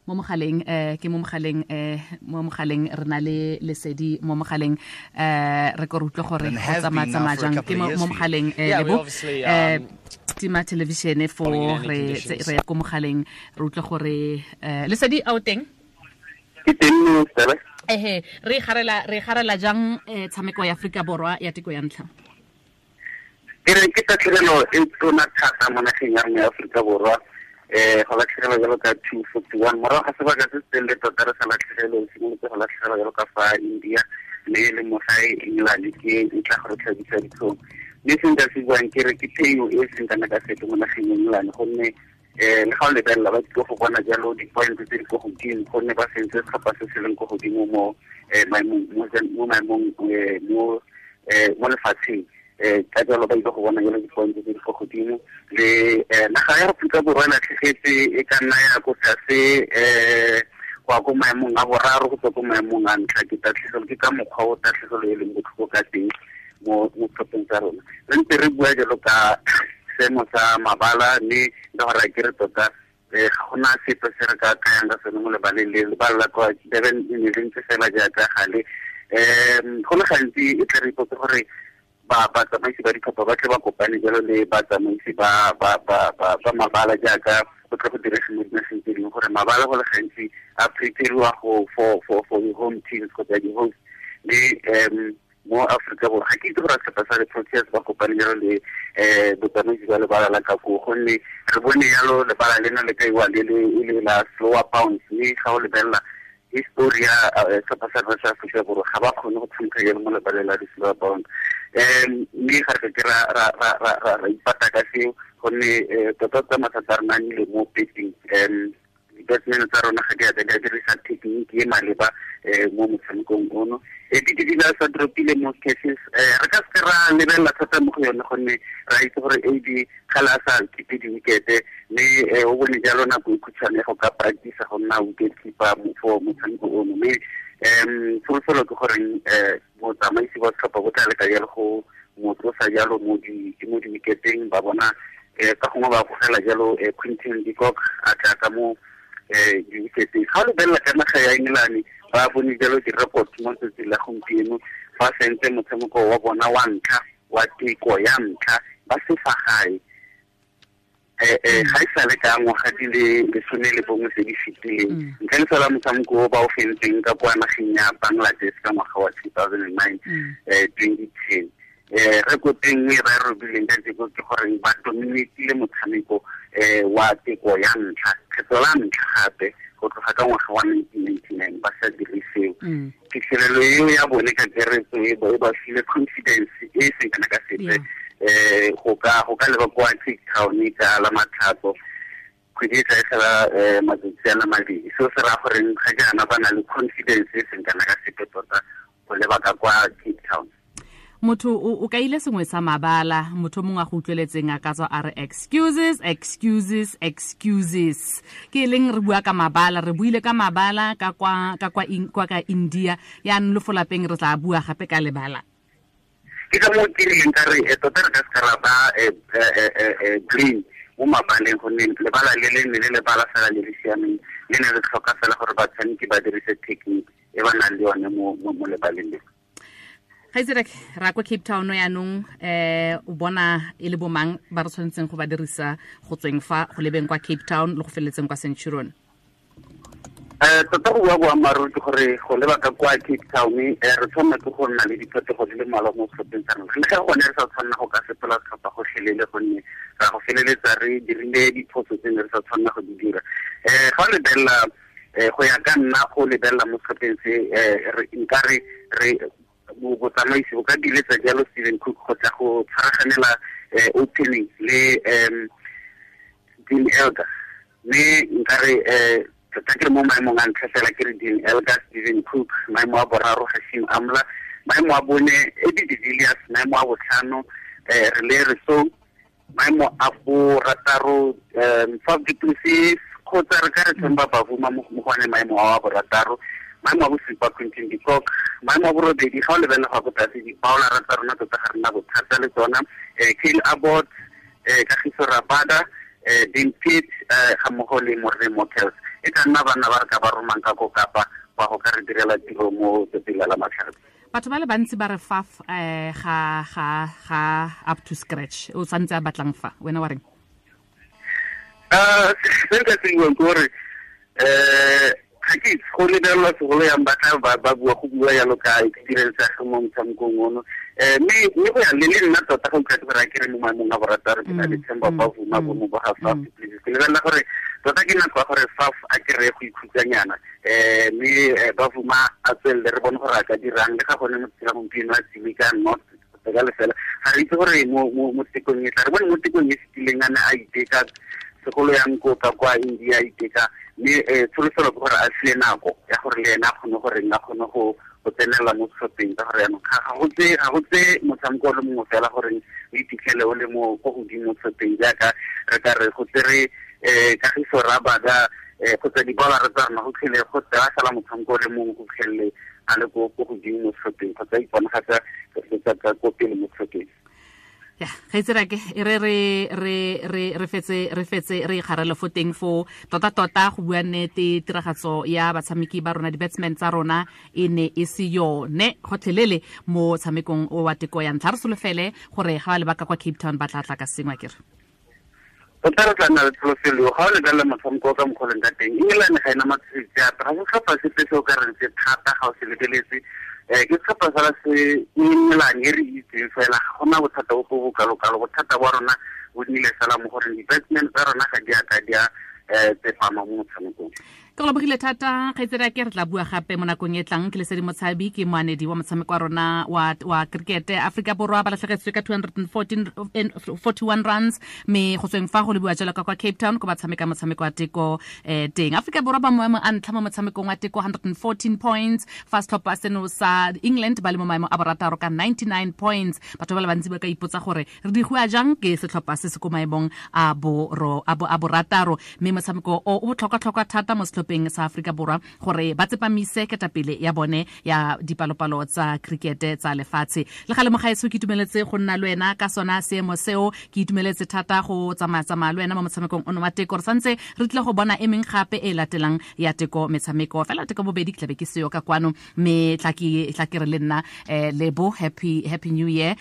Mo mogaleng ke mo mogaleng, mo mogaleng re na le Lesedi mo mogaleng, re ko re utlwe gore go tsamaya jang. Ke mo mogaleng, Lebo, tima television fo re re ya ko mogaleng, re utlwe gore Lesedi a o teng? Ke teng mo tsela. Ehe, re garela jang tshameko ya Afrika Borwa ya teko ya ntlha? Ke re ke tatlhegelo e tona thata mo nageng ya rona ya Aforika Borwa, go latlhegelwa jalo ka 241 morago ga sebaka se se telele tota re sa latlhegelwe. Simolotse go latlhegelwa jalo ka fa India, mme le mo gae England ke e tla go re tlhabisa ditlhong. Mme se nka se buang ke re ke phenyo e seng kana ka sepe mo nageng ya England, gonne le ga o lebelela ba tlile go bona jalo di-point tse di ko godimo, gonne ba sentse setlhopha se se leng ko godimo mo maemong mo lefatsheng. Ka jalo ba ile go bona jalo di-point tse di ko godimo. Le naga ya Aforika Borwa e latlhegetse, e ka nna ya ko tlase go ya ko maemong a boraro go tswa ko maemong a ntlha. Ke tatlhegelo, ke ka mokgwa o tatlhegelo e leng botlhoko ka teng mo setlhopheng sa rona. Re ntse re bua jalo ka seemo sa mabala, mme le gore a kere tota ga gona sepe se re ka kayang ka sone mo lebaleng le. Lebala la kwa Durban e ne le ntse fela jaaka gale. Go le gantsi e tla re ipotse gore ba batsamaisi ba ditlhopha ba tle ba kopane jalo le batsamaisi ba mabala, jaaka go tle go direge mo dinageng tse dingwe, gore mabala go le gantsi a prepariwa go for the home teams kgotsa di-host. Mme mo Aforika Borwa ga ke itse gore setlhopha sa di-Proteas ba kopane jalo le botsamaisi ba lebala la ka koo, gonne re bone jalo lebala lena le kaiwa le le e le la slower bounce. Mme ga o lebelela history ya setlhopha sa rona sa Aforika Borwa, ga ba kgone go tshameka jalo mo lebaleng la di-slower bounce. Mme ga re ke ra ipata ka seo, gonne tota tota mathata a rona a nnile mo batting. Di-batsman tsa rona ga di a di a dirisa technique e maleba mo motshamekong ono. AB de Villiers a dropile mo cases, re ka seke ra lebelela thata mo go yone, gonne ra itse gore AB ga le a sa keep di-wickete, mme o bone jalo nako e khutshwane go ka practice go nna wicket keeper for motshameko ono. Mme tsholofelo ke goreng botsamaisi ba setlhopha bo tla leka jalo go mo tlosa jalo mo di-wicketeng, ba bona ka gongwe ba gogela jalo Quinton de Kock a tla ka mo di-wicketeng. Ga o lebelela ka naga ya England, ba bone jalo di-record mo tsatsing la gompieno, ba sentse motshameko wa bona wa ntlha wa teko ya ntlha ba se fa gae ga e sale ka ngwaga di le 11 tse di fetileng, ntle le fela motshameko o ba o fentseng ka kwa nageng ya Bangladesh ka ngwaga wa 2009, 2010. Record e nngwe ba e robileng ka teko ke gore ba dominatile motshameko wa teko ya ntlha kgetlo la ntlha gape go tloga ka ngwaga wa 1999 ba sa dire seo. Phitlhelelo eo ya bone ka keretso e ba file confidence e e seng kana ka sepe go ka leba kwa Cape Town ka la Matlhatso kgwedi e tla e tlhola matsatsi a le 2. Seo se raya goreng ga jaana ba na le confidence e seng kana ka sepe tota go leba ka kwa Cape Town. Motho o kaile sengwe sa mabala, motho mongwe a go utlweletseng a ka tswa a re excuses, excuses, excuses. Ke leng re bua ka mabala, re buile ka mabala ka kwa ka India, yaanong le fo lapeng re tla bua gape ka lebala. Ke ka moo ke rileng ka re tota re ka se ra ba green mo mabaleng, gonne lebala le le ne le lebala fela le le siameng, le ne re tlhoka fela gore batshameki ba dirise technique e ba nang le yone mo lebaleng le. Gaitserek, ra kwa Cape Town yaanong, o bona e le bomang ba re tshwanetseng go ba dirisa go tsweng fa go lebeng kwa Cape Town le go feleletseng kwa Centurion? Tota go bua boammaaruri ke gore go leba ka kwa Cape Town, re tshwanela ke go nna le diphetogo di le mmalwa mo setlhopheng sa rona, le ga gone re sa tshwanela go ka fetola setlhopha gotlhelele, gonne ra go feleletsa re dirile diphoso tse ne re sa tshwanela go di dira. Ga o lebelela, go ya ka nna, go lebelela mo setlhopheng se, nka re botsamaisi bo ka diletsa jalo Steven Cook go tla go tshwaraganela opening le Dean Elgar. Mme nka re tota ke re mo maemong a ntlha fela ke re Dean Elgar, Steven Cook, maemo a boraro Hashim Amla, maemo a bone AB de Villiers, maemo a botlhano Rilee Rossouw, maemo a borataro Faf du Plessis, kgotsa re ka re Temba Bavuma mo go one maemo a borataro, maemo a bosupa Quinton de Kock, maemo a borobedi, ga o lebelela go ya ko tlase, di-bowler tsa rona tota ga rena bothata le tsona, Kyle Abbott, Kagiso Rabada. Dean Pitt ga mmogo le Morne Motels e ka nna banna ba re ka ba romang ka ko Kapa ba go ka re direla tiro mo tsatsing la Lamatlhatso. Batho ba le bantsi ba re Faf ga ga ga up to scratch, o santse a batlang fa, wena wa reng? Se nka se buang ke gore ga ke itse go lebelelwa segolo yang ba tla ba bua go bua yalo ka experience ya ge mo motshamekong ono, mme go ya le le nna tota ga utlwa gore a ke re mo maemong a borataro ke na le Themba Bavuma bo mo ba ga Faf du Plessis. Ke lebelela gore tota ke nako ya gore Faf a kry-e go ikhutsanyana, mme Bavuma a tswelele re bone gore a ka dirang le ga gone mo tsela gompieno a tsile ka not ka lefela. Ga re itse gore mo tekong e tla re bone mo tekong e fetileng a ne a iteka segolo yang ko ka kwa India a iteka, mme tsholofelo ke gore a fiwe nako ya gore le ena a kgone gore a kgone go tsenela mo setlhopheng, ka gore jaanong ga go tse motshameko o le mongwe fela gore o iphitlhele o le mo ko godimo mo setlhopheng, jaaka re ka re go tsere Kagiso Rabada kgotsa dibolara tsa rona go tlhele go tsaya fela motshameko o le mongwe go tlhelele a le ko godimo mo setlhopheng kgotsa iponagatsa ka ko pele mo setlhopheng. Ya, ga itse rake e re re re re re fetse re fetse re ikgarele fo teng fo tota tota go bua nnete tiragatso ya batshameki ba rona di-batsmen tsa rona e ne e se yone gotlhelele mo tshamekong o wa teko ya ntlha. Re solofele gore ga ba lebaka kwa Cape Town ba tla tla ka sengwe akere. Tota re tla nna le tsholofelo ga o lebelela motshameko ka mokgwa o leng ka teng. England ga ena matshosetsi ape, ga se setlhopha sepe se o ka reng se thata ga o se lebeletse. Ke setlhopha fela se England e re itseng fela, ga gona bothata bo bo kalo-kalo. Bothata ba rona bo nnile fela mo goreng di-batsmen tsa rona ga di a ka di a tsepama mo motshamekong. Ke go lebogile thata kgaitsedi ke re tla bua gape mo nakong e tlang. Ke Lesedi Motshabi, ke moanedi wa motshameko wa rona wa cricket. Afrika Borwa ba latlhegetswe ka 241 runs, mme go tsweng fa go lebiwa jalo ka kwa Cape Town ko ba tshameka motshameko wa teko teng. Afrika Borwa ba maemo a ntlha mo motshamekong wa teko 114 points, fa setlhopha seno sa England ba le mo maemo a borataro ka 99 points. Batho ba le bantsi ba ka ipotsa gore re digiwa jang ke setlhopha se se ko maemong a borataro, mme motshameko o botlhokwa-tlhokwa thata mo setlhopheng sa Afrika Borwa gore ba tsepamise ketapele ya bone ya dipalopalo tsa cricket tsa lefatshe. Le gale mogaetsho ke itumeletse go nna le wena ka sona seemo seo, ke itumeletse thata go tsamaya-tsamaya le wena mo motshamekong ono wa teko. Re santse re tlile go bona e meng gape e latelang ya teko metshameko, fela teko bobedi ke tlabe ke seo ka kwano, mme tla ke re le nna Lebo, happy new year.